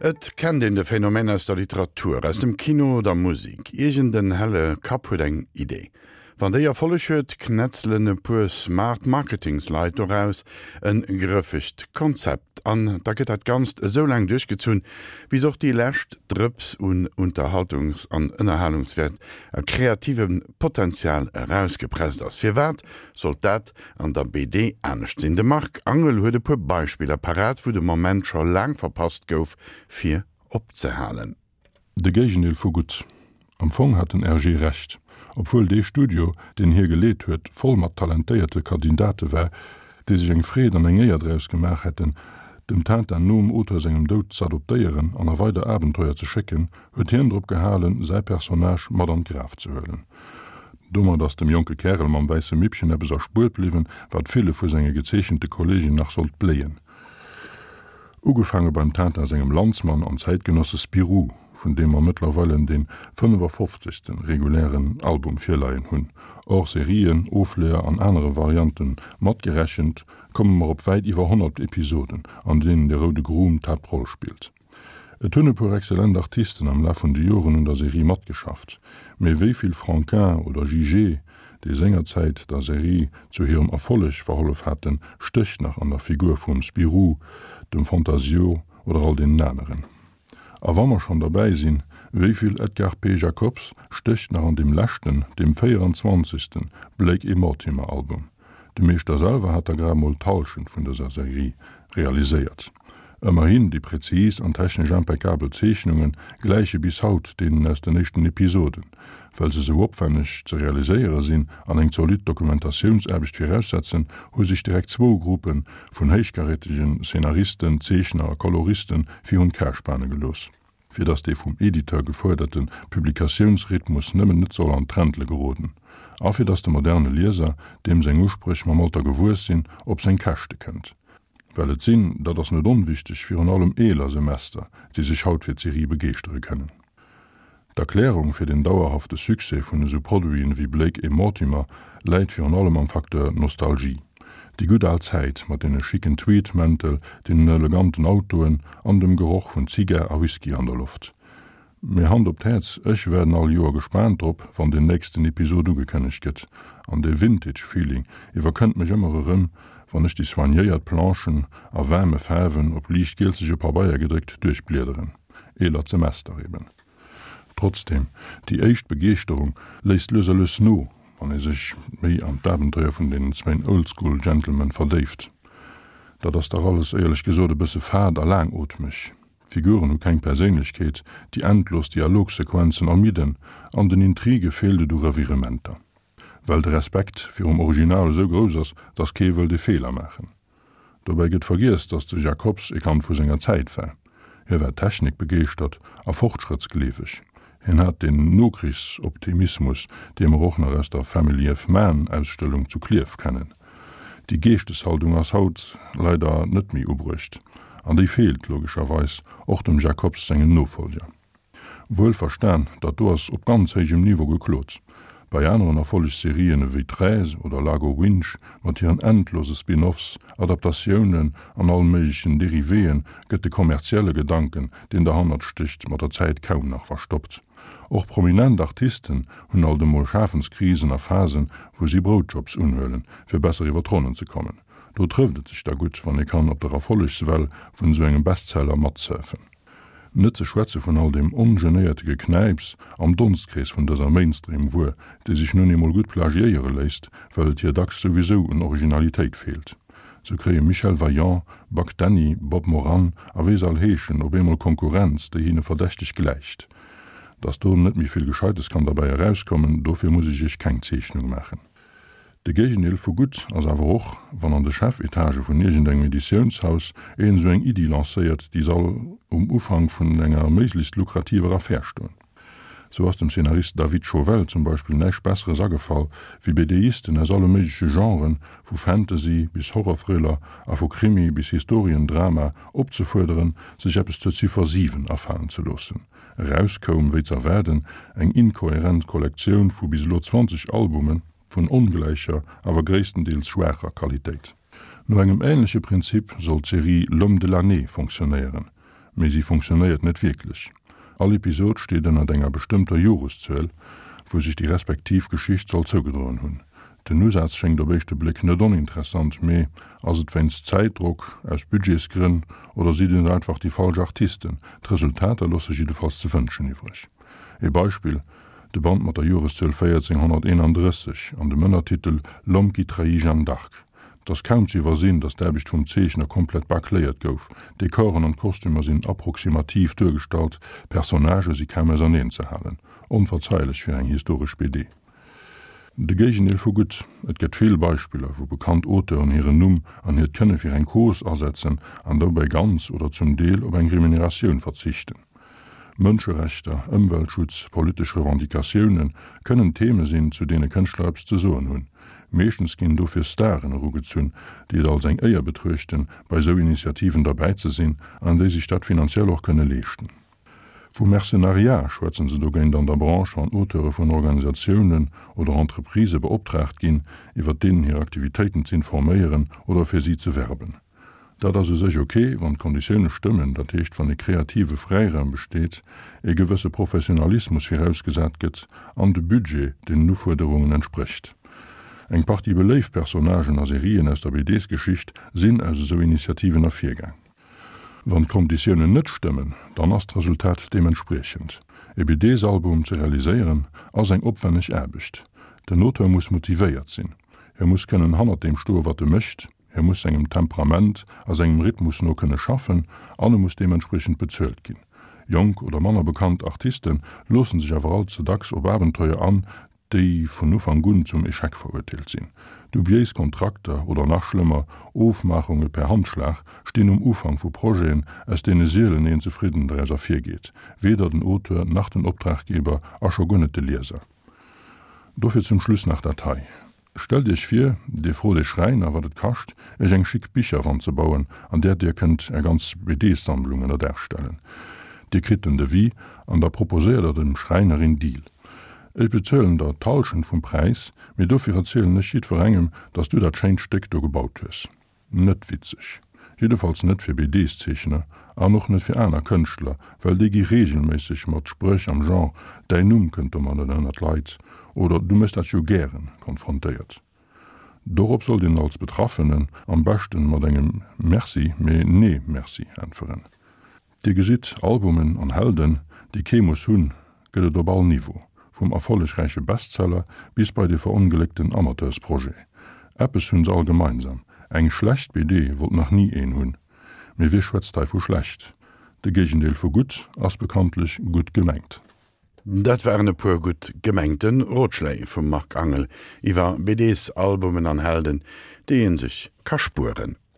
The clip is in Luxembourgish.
Et kennt een de Phänomen aus der Literatur, aus dem Kino, der Musik. Iergend en helle Kapp huet eng Idee. Wann déi Erfolleg huet, knätzelen e puer smart Marketingsleit doraus en grëffegt Konzept. An da gëtt dat Ganzt esou laang duerchgezunn, bis och déi lescht Drëps un Unterhaltungs an Ënnerhalungswäert a kreativem Potenzial erausgepresst ass. Firwat sollt dat an der BD anescht sinn? De Marc Angel huet e puer Beispiller parat, wou de Moment scho laang verpasst gouf, fir opzehalen. De Géigendeel vu gutt. Am Fong hat den Hergé Recht, obwuel dee Studio, deen hie geleet huet, voll mat talentéierte Kandidate war, déi sech eng Freed an eng Éier draus gemaach hätten, dem Tintin nom Auteur sengem Doud z'adoptéieren an a weider Abenteuer ze schécken, huet hien drop gehalen, säi Personnage mat an d'Graf ze huelen. Domat ass dem jonke Kärel mam wäisse Mippchen eppes erspuert bliwwen, wat ville vu senge gezeechente Kolleegen nach sollt bléien. Ugefaange beim Tintin sengem Landsmann an Zäitgenosse Spirou, vun deem mer mëttlerweilen dee 55. Regulären Album virleien hunn, Hors-Serien, Ofleeër an anere Variante matgerechent, komme mer op wäit iwwer 100 Episoden, an deenen de roude Grum d'Haaptroll spillt. Et hunn e puer exzellent Artisten am Laf vun de Joren un der Serie matgeschafft, mee wéi vill Franquin oder Jijé, déi sengerzäit der Serie zu hirem Erfolleg verhollef haten, stécht nach an der Figur vum Spirou, dem Fantasio oder all deenen aneren. A wa mer schonn derbäi sinn, wéi vill Edgar P. Jacobs stécht nach an deem leschten, deem 24. Blake et Mortimer Album? De Meeschter selwer hat der grad mol d'Hallschent vun dëser Serie realiséiert. Ëmmerhin, déi präzis an technesch impeccabel Zeechnunge gläiche bis haut deenen aus den éischten Episoden. Well se sou opwänneg ze realiséiere sinn an eng zolidd Dokumentatiounsaarbecht viraussetzen, hu sech direkt zwou Gruppe vun héichkarätegen Szenaristen, Zeechner a Koloriste virun d'Ka spane gelooss. fir datt dee vum Editeur gefuerderte Publikatiounsrhythmus nëmmen net soll an d'Träntle geroden a fir datt de moderne Lieser, deem seng Uspréch mam Alter gewuess sinn, op seng Käschte kënnt. Well et sinn, dat ass net onwichteg, virun allem eeler Semester, déi sech haut fir d'Serie begeeschtere kënnen. D'Erklärung fir den dauerhafte Succès vun esou Produiten ewéi Blake et Mortimer läit virun allem am Facteur Nostalgie. Déi gutt al Zäit mat deene schicken Tweed-Mäntel, deenen eleganten Autoen an dem Geroch vun Zigar a Whisky an der Loft. Mee Hand op d'Häerz, ech waarden all Joer gespaant drop, wann den nächsten Episod ugekënnegt gëtt. An dee Vintage-Feeling iwwerkënnt mech ëmmer erëm, wann ech déi soignéiert Planchen a waarme Faarwen op liicht gielzege Pabeier gedréckt duerchbliederen. Eelert Semester eben. Trotzdem, déi éischt Begeeschterung léisst lues a lues no, wann ee sech méi an d'Abenteuer vun deenen zwéin Oldschool Gentlemen verdéift. Dat ass dach alles, éierlech gesot, e bësse fad a laangootmeg. D'Figuren hu keng Perséinlechkeet, déi endlos Dialogsequenzen ermidden an den Intrige feelt et u Revirementer. Well de Respekt virum Original esou grouss ass, dass kee wëllt e Feeler maachen. Dobäi gëtt vergiess, dass de Jacobs e Kand vu senger Zäit war. Hie war technikbegeeschtert a fortschrëttsgleeweg. Hien hat den Nokrichsoptimismus, dee mer och nach aus der Family of Man Ausstellung zu Klierf kennen. Déi Geeschteshaltung ass haut leider net méi ubruecht an déi feelt logescherweis och dem Jacobs sengen Nofolger. Wuel verstan, dat do ass op ganz héijem Niveau geklot. Bei aneren Erfollegsserien ewéi Treize oder Largo Winch mat hiren endlose Spin-Offs, Adaptatiounen an all méiglechen Dérivéen gëtt de kommerzielle Gedanken, deen derhannert stécht, mat der Zäit kaum nach verstoppt. Och prominent Artisten hunn alt emol Schafenskrisen a Phasen, wou si Broutjobs unhuelen, fir besser iwwer d'Ronnen ze kommen. Do trëfft et sech da gutt, wann ee kann op der Erfollegswell vun esou engem Bestseller matsurfen. Net ze schwätze vun all deem ongenéierte Geknäips am Donstkrees vun dëser Mainstream-Wuer, déi sech nun eemol gutt plagiéiere léisst, well et hir dacks souwisou un Originalitéit feelt. Sou kréie Michel Vaillant, Buck Danny, Bob Moran a wéi se all heeschen op eemol Konkurrenz, déi hinne verdächteg gläicht. Dass do net méi vill Gescheites kann derbäi erauskommen, dofir muss ech iech keng Zeechnung maachen. De Géigendeel vu gutt ass awer och, wann an de Chefetage vun iergendengem Editiounshaus een esou eng Iddi lancéiert, déi soll um Ufank vun enger méiglechst lukrativer Affär stoen. Sou ass dem Szenarist David Chauvel zum Beispill näischt Besseres agefall, wéi BDisten aus alle méigleche Genren, vu Fantasy bis Horror-Thriller a vu Krimi bis Historiendrama, opzefuerderen, sech eppes zur Ziffer 7 afalen ze loossen. Eraus koum, wéi z'erwaarden, eng inkohärent Kollektioun vu bis elo 20 Albume vun ongläicher, awer gréisstendeels schwaacher Qualitéit. No engem änleche Prinzip soll d'Serie L'homme de l'année fonctionnéieren. Mee si funktionéiert net wierklech. All Episod steet ënnert enger bestëmmter Joreszuel, wou sech déi respektiv Geschicht soll zougedroen hunn. Den Usaz schéngt op éischte Bléck net oninteressant, mee ass et wéinst Zäitdrock, aus Budgetsgrënn oder sinn et einfach déi falsch Artisten? D'Resultater loosse jiddefalls ze wënschen iwwreg. Ee Beispill, de Band mat der Joreszuel 1431 an dem Ënnertitel L'homme qui trahit Jeanne d'Arc. 't ass kaum ze iwwersinn, datt d'Aarbecht vum Zeechner komplett bâcléiert gouf, d'Dekoren an d'Kostümer sinn approximativ duergestallt, d'Personnagë si kaum auserneen ze halen. Onverzeilech fir eng historesch BD. De Géigendeel vu gutt. Et gëtt vill Beispiller, wou bekannt Auteuren hiren Numm an hiert Kënne fir eng Cause asetzen an dobäi ganz oder zum Deel op eng Remuneratioun verzichten. Mënscherechter, Ëmweltschutz, politesch Revendicatioune kënnen Theme sinn, zu deene Kënschtler eppes ze soen hunn. Meeschtens ginn dofir Staren erugezunn, déi et als eng Éier betruechten, bei esou Initiativen derbäi ze sinn an déi sech dat finanziell och kënne leeschten. Vu Mercenariat schwätzen se dogéint an der Branche, wann Auteure vun Organisatiounen oder Entreprisë beoptraagt ginn, iwwer deenen hir Aktivitéiten z'informéieren oder fir si ze werben. Dat ass u sech ok, wann d'Konditioune stëmmen, dat heescht wann e kreative Fräiraum besteet, e gewësse Professionalismus virausgesat gëtt an de Budget den Ufuerderungen entsprécht. Eng Partie beléift Personnagen a Serien aus der BDs-Geschicht sinn aus esou Initiativen ervirgaang. Wann d'Konditiounen net stëmmen, dann ass d'Resultat deementspriechend. E BDs-Album ze realiséieren ass eng opwenneg Aarbecht. Den Auteur muss motivéiert sinn, hie muss kënnen hannert deem stoe wat e mécht, hie muss sengem Temperament a sengem Rhythmus no kënne schaffen an e muss deementspriechend bezuelt ginn. Jonk oder manner bekannt Artiste loosse sech awer all ze dacks op Abenteuer an, déi vun Ufank un zum Echec verurteelt sinn. Dubiéis Kontrakter oder nach schlëmmer, Ofmaachunge per Handschlag stinn um Ufank vu Projeten, aus deene sielen een zefridden draus ervirgeet, weder den Auteur nach den Optraggeber a scho guer net de Lieser. Dofir zum Schluss nach dat hei, Stellt Iech vir, Dir frot ee Schräiner, wat et kascht, Iech eng schick Bicherwand ze bauen, an där Dir kënnt Är ganz BD-Sammlung ënner Daach stellen. Dir kritt den Devis an da proposéiert Der dem Schräiner een Deal. Ech bezuelen der d'Halschent vum Präis, mee dofir erzielen ech jiddwerengem, dass du dat schéint Stéck do gebaut hues. Net witzeg. Jiddefalls net fir BDs-Zeechner an och net fir aner Kënschtler, well déi gi reegelméisseg mat Spréch am Genre Däin Numm kënnt domat net ënner d'Leit oder Du méchs dat jo gären konfrontéiert. Dorop sollt een als Betraffenen am beschten mat engem Merci, mee nee merci äntweren. Dir gesitt, Albumen an Helden, déi kee muss hunn, gëtt et op all Niveau, vum erfollegräiche Bestseller bis bei de verongléckten Amateursprojet. Eppes hunn se all gemeinsam, eng schlecht BD wollt nach ni een hunn. Mee wie schwätzt hei vu schlecht? De Géigendeel vu gutt ass bekanntlech gutt gemengt. Dat waren e puer gutt gemengte Rotschléi vum Marc Angel iwwer BDs, Albumen an Helden, déi ee sech ka spueren.